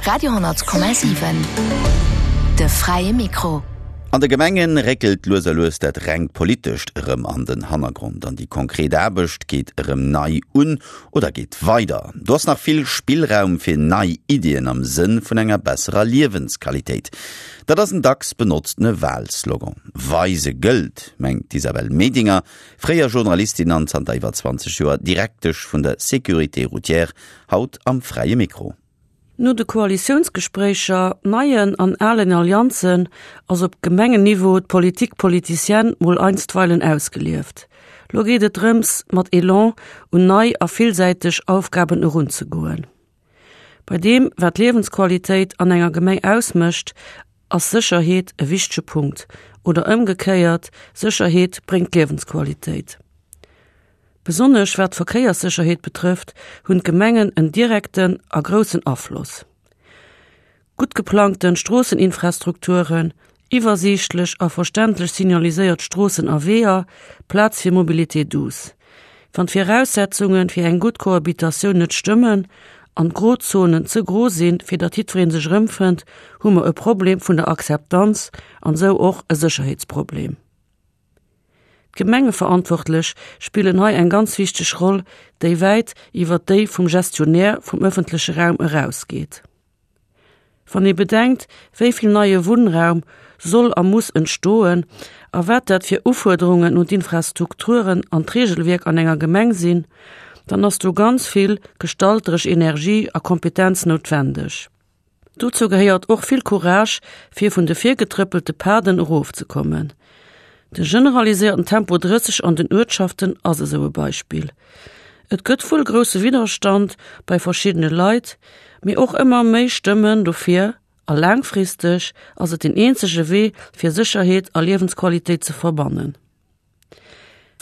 Radio 10,7 De fräie Mikro. An de Gemenge réckelt lues a lues dat rengt Politescht erëm an den Hannergrond an déi konkret Aarbecht geet erëm nei un oder geet weider. Do ass nach vill Spillraum fir nei Iddien am Sënn vun enger besserer Liewensqualitéit. Dat ass en dacks benotztene Wahlslogan. Weise gëllt, mengt d'Isabelle Medinger, fréier Journalistin an zanter iwwer 20 Joer Direktesch vun der Sécurité routière, haut am Fräie Mikro. No de Koalitiounsgespréicher, neien an alen Allianzen ass op Gemengenniveau d'Politique politicienne mol einstweilen ausgelieft. Lo geet et drëms, mat Elan un nei a villsäiteg Aufgaben erunzegoen. Bei deem, wat d'Liewensqualitéit an enger Gemeng ausmécht, ass Sécherheet e wichtege Punkt, oder ëmgekéiert, Sécherheet bréngt Liewensqualitéit. Besonnesch wat d'Verkéierssécherheet betrëfft, hunn d'Gemengen en direkten a groussen Afloss. Gutt geplangten Stroosseninfrastrukturen, iwwersiichtlech a verständlech signaliséiert Stroossen a Weeër, Plaz fir Mobilité douce. Wann d'Viraussetzunge fir eng gutt Cohabitatioun net stëmmen an d'Grozonen ze gro sinn, fir datt jiddweree sech erëmfënnt, hu mer e Problem vun der Akzeptanz an esou och e Sécherheetsproblem. D'Gemengeverantwortlech spillen hei eng ganz wichteg Roll, déi wäit iwwer déi vum Gestionnaire vum ëffentleche Raum erausgeet. Wann ee bedenkt, wéi vill neie Wunnraum soll a muss entstoen a wat dat fir Ufuerderungen un d'Infrastrukturen an d'Regelwierk an enger Gemeng sinn, dann ass do ganz vill gestalteresch Energie a Kompetenz noutwendeg. Dozou gehéiert och vill Courage, fir vun de virgetrëppelte Paden erofzekommen. De generaliséierten Tempo 30 an den Uertschaften ass esou e Beispill. Et gëtt wuel grousse Widderstand bei verschiddene Leit, mee och ëmmer méi Stëmmen dofir a laangfristeg ass et den eenzege Wee fir Sécherheet a Liewensqualitéit ze verbannen.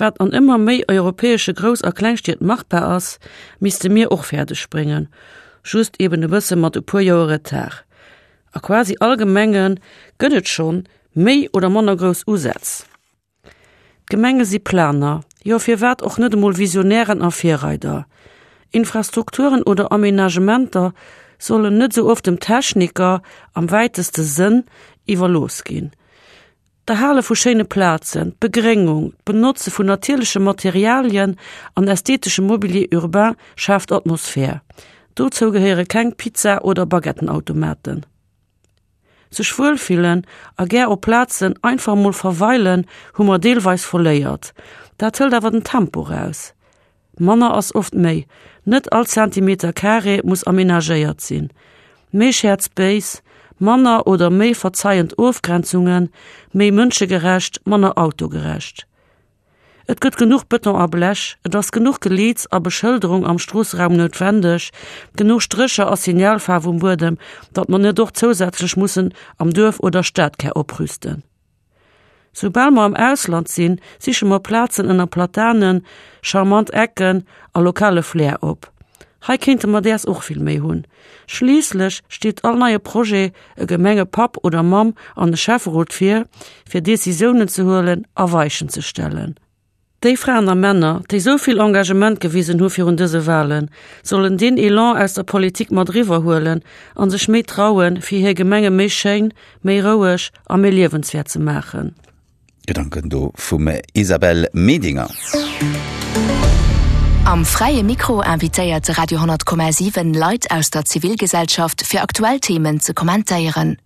Wat an ëmmer méi europäesche Grouss a Klengstied machbar ass, misste mir och fäerdeg bréngen, just eben e bësse mat e puer Joer Retard. A quasi all Gemenge gëtt et schonn méi oder manner grouss Usätz. D'Gemenge si Planer, jo firwat och net emol Visionären a Virreider. Infrastrukturen oder Aménagementer sollen net esou oft dem Techniker, am wäiteste Sënn, iwwerlooss ginn. D'Erhale vu schéine Plazen, d'Begréngung, d'Benotze vun natierleche Materialien an ästheteschem Mobilier urbain schaaft Atmosphär. Dozou gehéiere keng Pizza oder Baguettenautomaten. Sech wuelfillen a gär op Plazen einfach mol verweilen hu mer deelweis verléiert. Dat hëlt awer den Tempo raus. Manner ass oft méi, net all Zentimeter Carré muss amenagéiert sinn. Méi Shared Space, manner oder méi verzeiend Ofgrenzungen, méi mënschegerecht, manner autogerecht. Et gëtt genuch Bëton a Blech, et ass genuch Geleeds a Beschëlderung am Stroosseraum noutwendeg, genuch Strécher a Signalfaarf um Buedem, datt mer net och zousätzlech mussen am Duerf oder Stadkär oprüsten. Soubal mer am Ausland sinn, siche mer Plazen ënner Platanen, charmant Ecken a lokale Flair op. Hei kéinte mer däers och vill méi hunn. Schliisslech steet all neie Projet e Gemengepapp oder Mamm an e Schäfferot vir, fir Decisiounen ze huelen a Weichen ze stellen. Déi Fraen a Männer, déi sou vill Engagement gewisen hu virun dëse Wahlen, sollen deen Elan aus der Politik mat eriwwer huelen a sech méi trauen, fir hir Gemenge méi schéin, méi roueg a méi liewenswäert ze maachen. Gedanken do vum Isabelle Medinger. Am Fräie Mikro invitéiert de Radio 10,7 Leit aus der Zivilgesellschaft fir aktuell Themen ze kommentéieren.